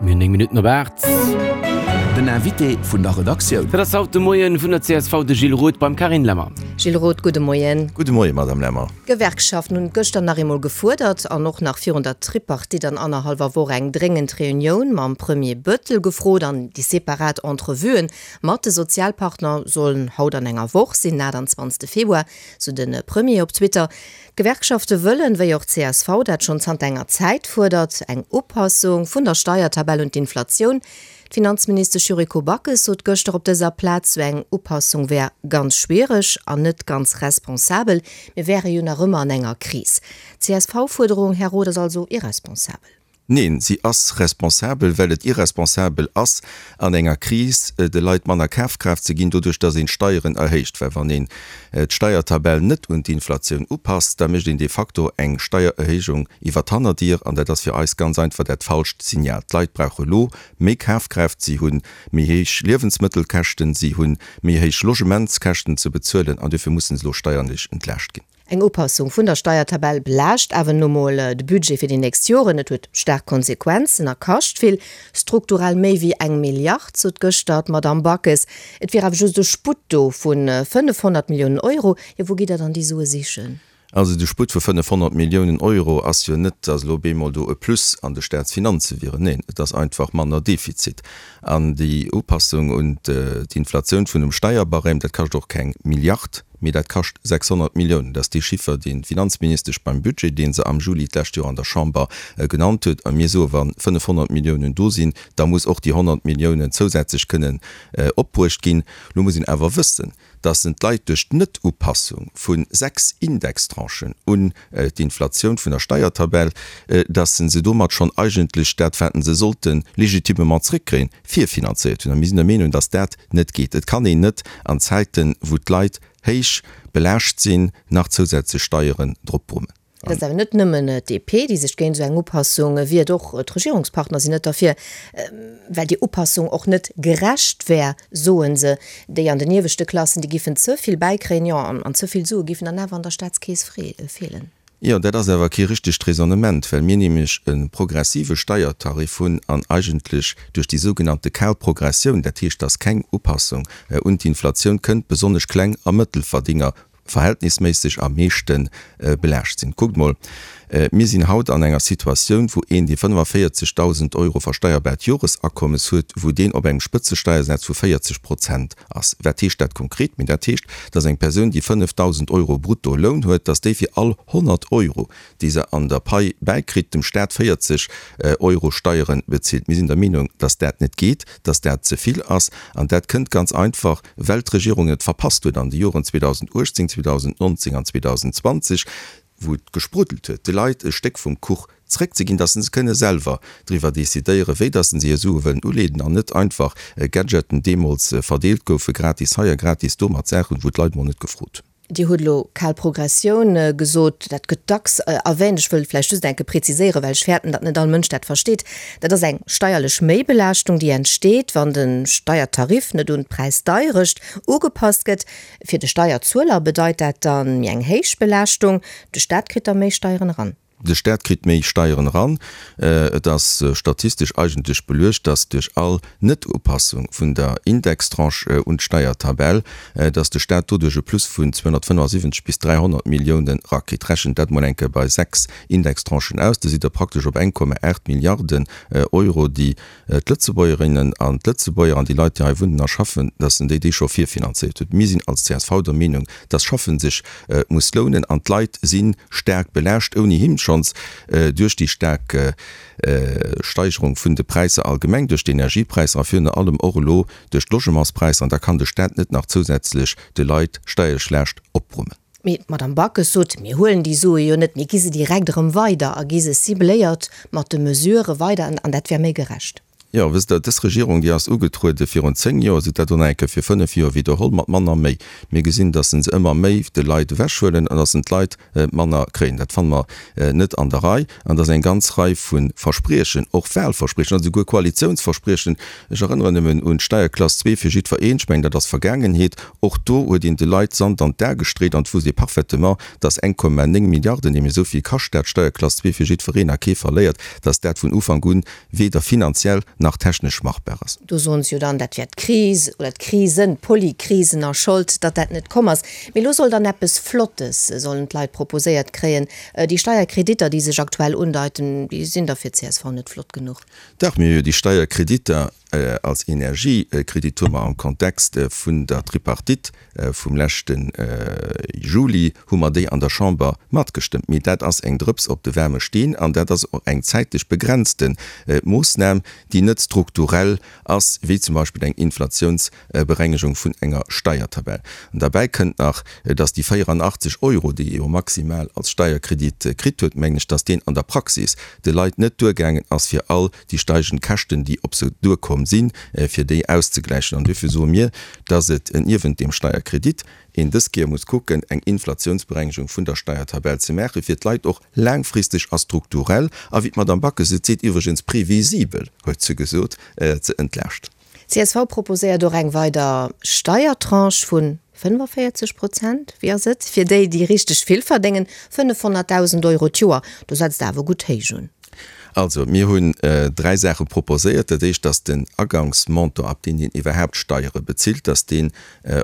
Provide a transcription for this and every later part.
Mir hunn 9 Minutten op 8. Den Invité vun der Redaktioun. Dat ass haut de Moien vun der csv de Gilles Roth beim Carine Lemmer. Gilles Roth, gudde Moien. Gudde Moien, Madame Lemmer. D'Gewerkschaften hunn gëschter nach eemol gefuerdert an och nach virun der Tripartite an annerhallwer Woch eng dréngend Reunioun mam Premier Bettel gefrot. An déi separat Entrevuen mat de Sozialpartner sollen haut an enger Woch sinn, den 28 Februar, sou de Premier op Twitter. D'Gewerkschafte wëllen, wéi och d'CSV dat schonn zanter enger Zäit fuerdert, eng Upassung vun der Steiertabell un d'Inflatioun. D'Finanzministesch Yuriko Backes sot gëschter op dëser Plaz, sou eng Upassung wär ganz schwiereg an net ganz responsabel. Mir wäre jo nach ëmmer an enger Kris. D'CSV-Fuerderung, Här Roth, ass also irresponsabel. Neen, si ass responsabel, well et irresponsabel ass, an enger Kris de Leit manner Kafkraaft ze ginn, doduerch datt een d'Steieren erhéicht. Well wann een d'Steiertabell net un d'Inflatioun upasst, da mécht een de facto eng Steiererhéijung iwwer d'Hannerdier, an dat ass fir eis ganz einfach dat falscht Signal. D'Leit brauche lo méi Kafkraaft, si hu méi héich Liewensmëttelkäschten, si hu méi héich Logementskäschten ze bezuelen, an duerfir mussen se elo steierlech entlaascht ginn. Eng Upassung vun der Steiertabell belaascht awer nu mol de Budget fir déi nächst Joren. Et huet staark Konsequenzen a kascht vill, strukturell méi wéi eng Milliard, sot gëschter d'Madamm Backes. Et wier awer just e Sputt do vu 500 Milliounen Euro. Jo, wou gitt Der dann déi Sue sichen? Also de Sputt vu 500 Milliounen Euro ass jo net, datt elo bemol do e Plus an de Staatsfinanze wieren. Neen, et ass einfach manner Defizit. An déi Upassung un d'Inflatioun vun dem Steierbarème, dat kascht och keng Milliard. Mee dat kascht 600 Milliounen. Dat ass dee Chiffer, deen d'Finanzministesch beim Budget, dee se am Juli d'lescht Joer an der Chamber genannt huet. A mir soe wa 500 Milliounen do sinn, da muss och déi 100 Milliounen zousätzlech kënnen opbruecht ginn. Lo muss een awer wëssen, datt en d'Leit duerch d'Net-Upassung vu 6 Indextranchen un d'Inflatioun vun der Steiertabell, datt se domat schonn eigentlech dat, wat se sollte légitimement zréckkréien, virfinanzéiert hunn. A mir sinn der Meenung, datt dat net geet. Et kann een net an Zäiten, wou d'Leit héich belaascht sinn, nach zousätzlech Steieren drop brummen. Et ass awer net nëmmen d'DP, déi sech géint esou eng Upassung wiert, och d'Regierungspartner sinn net derfir, well déi Upassung och net gerecht wär, soe se. Déi an den ieweschte Klassen, déi giffen ze vill bäikréien, jo, an ze vill Sue giffen dann awer an der Staatskeess feelen. Jo, dat ass awer kee richtegt Raisonnement, well mir nämlech e progressive Steiertarif hunn an eigentlech duerch déi sougenannte kal Progressioun, dat heescht, dass keng Upassung un d'Inflatioun kënnt, besonnesch Kleng a Mëttelverdienger verhältnisméisseg am meeschte belaascht sinn. Kuckt mol, mir sinn haut an enger Situatioun, wou een, dee 45.000 Euro versteierbaart Joresakommes huet, wou deen op engem Spëtzesteiersaz vu 40 Prozent ass. Wat heescht dat konkret? Mee dat heescht, dass eng Persoun, déi 5.000 Euro brutto Loun huet, dass déi fir all 100 Euro, déi se an der Pai bäikritt, dem Staat 40 Euro Steiere bezilt. Mir sinn der Meenung, dass dat net geet, dass dat ze vill ass. An dat kënnt ganz einfach, well d'Regierung et verpasst huet an de Joren 2018, 2019 an 2020, wou et gespruddelt huet, de Leit e Stéck vum Kuch zréckzeginn, dass se kënne selwer driwwer decidéieren, wéi dass se hir Sue wëllen uleeden an net einfach Gadgeten deemools verdeelt goufe, gratis hei a gratis do, mat Saachen, wou d'Leit mol net gefrot hunn. Dir hutt elo kal Progressioun gesot. Dat gëtt dacks erwähnt. Ech wëll vläicht just eng Kéier präziséieren, well ech fäerten, datt net all Mënsch dat versteet. Dat ass eng steierlech Méibelaaschtung, déi entsteet, wann de Steiertarif net un d'Präisdeierecht ugepasst gëtt. Fir de Steierzueler bedeit dat dann méi eng héich Belaaschtung, de Staat kritt da méi Steieren eran. De Staat kritt méi Steieren eran. Et ass statistesch eigentlech beluecht, dass duerch all Net-Upassung vun der Indextranche un d'Steiertabell, dass de Staat doduerch e Plus vun 275 bis 300 Milliounen erakritt. Rechent dat mol eng Kéier bei 6 Indextranchen aus, da sidd Der praktesch op 1,8 Milliarden Euro, déi d'Lëtzebuergerinnen an d'Lëtzebuerger an déi Leit, déi hei wunnen a schaffen, dass en déi déi scho virfinanzéiert huet. Mir sinn als csv der Meenung, dass Schaffen sech muss lounen an d'Leit si staark belaascht, ouni him schonns duerch déi staark Steigerung vun de Präisser allgemeng, duerch d'Energiepräisser a virun allem och elo duerch d'Logementspräisser. An da kann de Staat net nach zousätzlech de Leit steierlech Laascht opbrummen. Mee d'Madame Backes sot, Mir huelen déi Sue jo net, mir gi se direkt erëm weider a gi se cibléiert mat de Mesurë weider an dat wär méi gerecht. Jo, wësst Der, dës Regierung, déi ass ugetruede virun 10 Joer, se huet dat elo nach eng Kéier fir 5 Joer widderholl, mat manner méi. Mir gesinn, datt se ëmmer méi de Leit ewechhuelen an datt se d'Leit manner kréien. Dat fanne mer net an der Rei. An datt eng ganz Rei vu Verspriechen, och Wahlverspriechen, an esouguer Koalitiounsverspriechen, ech erënneren nëmmen un d'Steierklass 2 fir jiddwereen, ech mengen, dat ass Vergaangenheet, och do huet een de Leit Sand an d'A gestreet an et wusst ee parfaitement, datt 1,9 Milliarden, nämlech esou vill kascht dat, d'Steierklass 2 fir jiddwereen a kee verléiert, datt dat vun Ufank un weder finanziell nach technesch machbar ass. Do soen se jo dann, dat wär d'Kris oder d'Krisen, d'Polykrisen a Schold, datt dat net komm ass. Mee elo soll dann eppes Flottes, sollen d'Leit proposéiert kréien. Déi Steierkreditter, déi sech aktuell undeiten, déi sinn da fir d'CSV net flott genuch. Dach, mir hu jo déi Steierkreditter als Energiekredit hu mer am Kontext vun der Tripartite vum leschte Juli hu mer déi an der Chamber matgestëmmt. Mee dat ass eng Drëps op de waarme Steen an dat ass och eng zäitlech begrenzte Moossnam, déi net strukturell ass, wéi zum Beispill eng Inflationsberengegung vun enger Steiertabell. An derbäi kënnt nach, dass déi 84 Euro, déi ee jo maximal als Steierkredit kritt huet, mengen ech, dass deen an der Praxis de Leit net duergaangen ass, fir all déi steigend Käschten, déi op se duerkomm sinn, fir déi auszegläichen. An duerfir soe mir, dass et niewent deem Steierkredit een dës Kéier muss kucken, eng Inflationsberengegung vun der Steiertabell ze maachen, fir d'Leit och laangfristeg a strukturell, a wéi d'Madame Backes et seet, iwwregens previsibel, huet se gesot, ze entlaaschten. Csv proposéiert och eng weider Steiertranche vu 45 Prozent, wéi ass et, fir déi, déi richteg vill verdéngen, 500.000 Euro d'Joer. Do setzt Der awer gutt héich un. Also, mir hunn dräi Saache proposéiert. Dat éischt ass den Agangsmontant, ab deem een iwwerhaapt Steiere bezilt, dass deen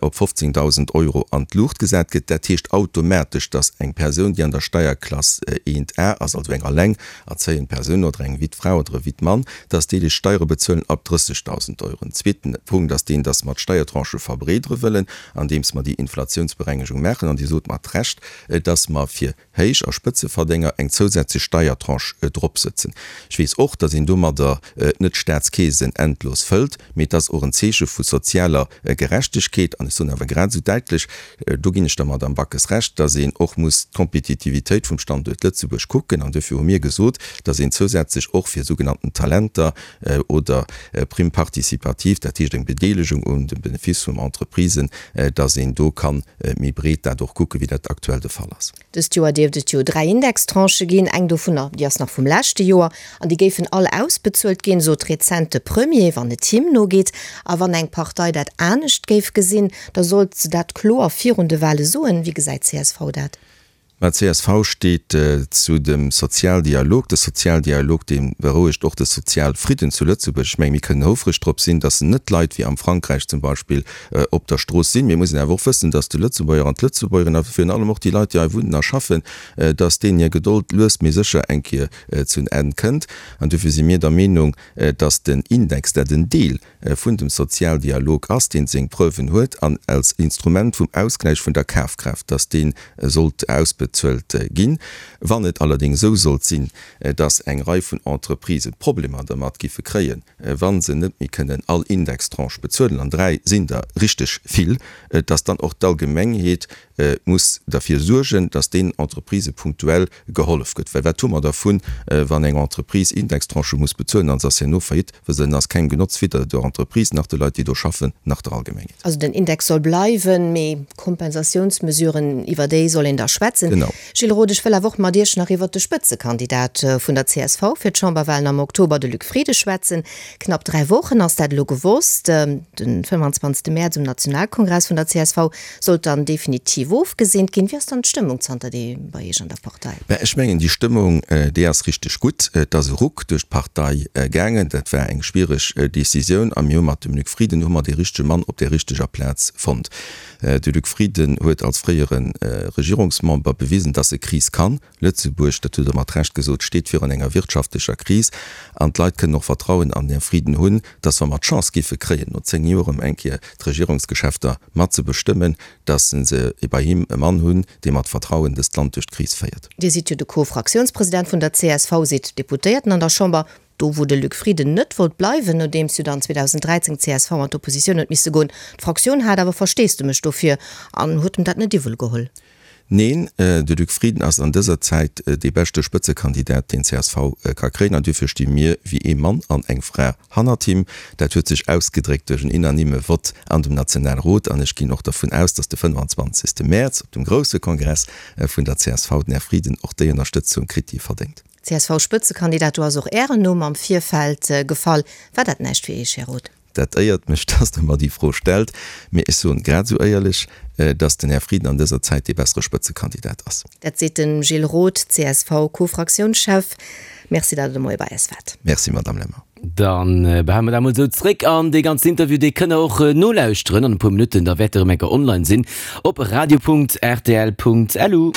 op 15.000 Euro an d'Luucht gesat gëtt. Dat heescht automatesch, dass eng Persoun, déi an der Steierklass 1 A ass, also eng alleng erzéiend Persoun oder eng Wittfra oder e Wittmann, dass déi déi Steiere bezuelen ab 30.000 Euro. En zweeten Punkt ass deen, dass mer d'Steiertranchë verbreedere wëllen, andeems mer déi Inflationsberengegung maachen. An Dir sot mat Recht, dass mer fir Héich a Spëtzeverdénger eng zousätzlech Steiertranche dropsëtzen. Ech weess och, datt een domadder net d'Staatskeesen endlos fëllt, mee et ass och en Zeeche vu sozialer Gerechtegkeet. An ech soen awer grad esou däitlech, do ginn ech der Madamm Backes Recht, datt een och muss d'Kompetitivitéit vum Standuert Lëtzebuerg kucken. An duerfir hu mir gesot, datt een zousätzlech och fir sougenannten Talenter oder Prime participative, dat heescht eng Bedeelegung un dem Benefice vum Entreprisen, datt een do ka méi breet dat och kucken, wéi dat aktuell de Fall ass. Dëst Joer dierft et jo 3 Indextranchë ginn. Eng dovunner, déi ass nach vum leschte Joer an déi géifen all ausbezuelt ginn, sot rezent de Premier, wann et him nogeet. A wann eng Partei dat anescht géif gesinn, da sollt se dat kloer virun de Wale soen. Wéi gesäit csv dat? Mä csv steet zu dem Sozialdialog. De Sozialdialog, dee berouegt och de Sozialfridden zu Lëtzebuerg. Ech menge mir kënnen houfreg drop sinn, datt net Leit wéi am Frankräich zum Beispill op der Strooss sinn. Mir mussen awer och wëssen, datt de Lëtzebuerger an d'Lëtzebuergerin a virun allem och déi Leit, déi hei wunnen a schaffen, datt deenen hir Gedold lues mee sécher eng Kéier zu en Enn kënnt. An duerfir si mir der Meenung, datt den Index, dat en Deel vun dem Sozialdialog ass, deen seng Preuven huet an als Instrument vum Ausgläich vun der Kafkraaft, dass dee sollt ausbezuelt ginn. Wann et allerdéngs esou sollt sinn, dass eng Rei vun Entreprisë Problemer dermat giffe kréien, wa se net méi kënnen all Indextranche bezuelen, an 3 sinn der richteg vill, dass dann och d'Allgemengheet muss derfir suergen, dass deenen Entreprisë punktuell gehollef gëtt. Well wat hu mer dervun, wann eng Entreprise Indextranchë muss bezuelen an se ass herno faillite, well se ass kengem Genotz, weder der Entreprise nach de Leit, déi do schaffen, nach der Allgemengheet. Also den Index soll bleiwen, mee Kompensatiounsmesuren, iwwer déi soll een da schwätzen. Genau. Gilles Roth, ech wëll awer och mat Iech nach iwwert de Spëtzekandidat vun der csv fir d'Chamberwahlen am Oktober, de Luc Frieden, schwätzen. Knapp 3 Wochen ass dat elo gewosst. Den 25 Mäerz um Nationalkongress vun der csv sollt dann definitiv ofgeseent ginn. Wéi ass dann d'Stëmmung zanterdeem bei Iech an der Partei? Mä ech mengen, déi Stëmmung, déi ass richteg gutt. Et ass e Ruck duerch d'Partei gaangen. Dat war eng schwiereg Decisioun a mir hu mat dem Luc Frieden hu mer dee richtege Mann op där richteger Plaz fonnt. De Luc Frieden huet als fréiere Regierungsmember bewisen, dass e Kris kann. Lëtzebuerg, dat hutt Der mat Recht gesot, steet virun enger wirtschaftlecher Kris an d'Leit kënnen och Vertrauen an den Här Frieden hunn, dass, wa mer d'Chance géife kréien, no 10 Joer erëm eng Kéier d'Regierungsgeschäfter mat ze bestëmmen, dass se bei him e Mann hunn, dee mat Vertrauen dëst Land duerch d'Kris féiert. Dir sidd jo de Co-Fraktiounspresident vun der csv, sidd Deputéierten an der Chamber, do wou de Luc Frieden net wollt bleiwen, nodeems jo dann 2013 d'CSV an d'Oppositioun huet misse goen. D'Fraktioun hat awer Versteesdemech dofir an huet em dat net iwwel geholl. Neen, de Luc Frieden ass an dëser Zäit dee beschte Spëtzekandidat, deen csv ka kréien. An duerfir sti mir wéi ee Mann an eng Fra hannert him. Dat huet sech ausgedréckt duerch en unanime Vott an dem Nationalrot. An ech ginn och dervun aus, datt de 25. Mäerz op dem grousse Kongress vun der csv den Här Frieden och déi Ënnerstëtzung kritt, déi e verdéngt. CSV-Spëtzekandidat, do ass och Ären Numm am Virfeld gefall. War dat näischt fir Iech, Här Roth? Dat éiert mech, dass Der mer déi Fro stellt. Mee ech soen grad esou éierlech, dass den Här Frieden an dëser Zäit dee bessere Spëtzekandidat ass. Dat seet de Gilles Roth, CSV-Co-Fraktiounschef. Merci, datt Der de Moie bei eis waart. Merci, Madamm Lemmer. Da behale mer dat emol esou zréck. An dee ganzen Interview, dee kënnt Der och nolauschteren an e puer Minutten. Da wäert e rëm eng Kéier online sinn op radio.rtl.lu.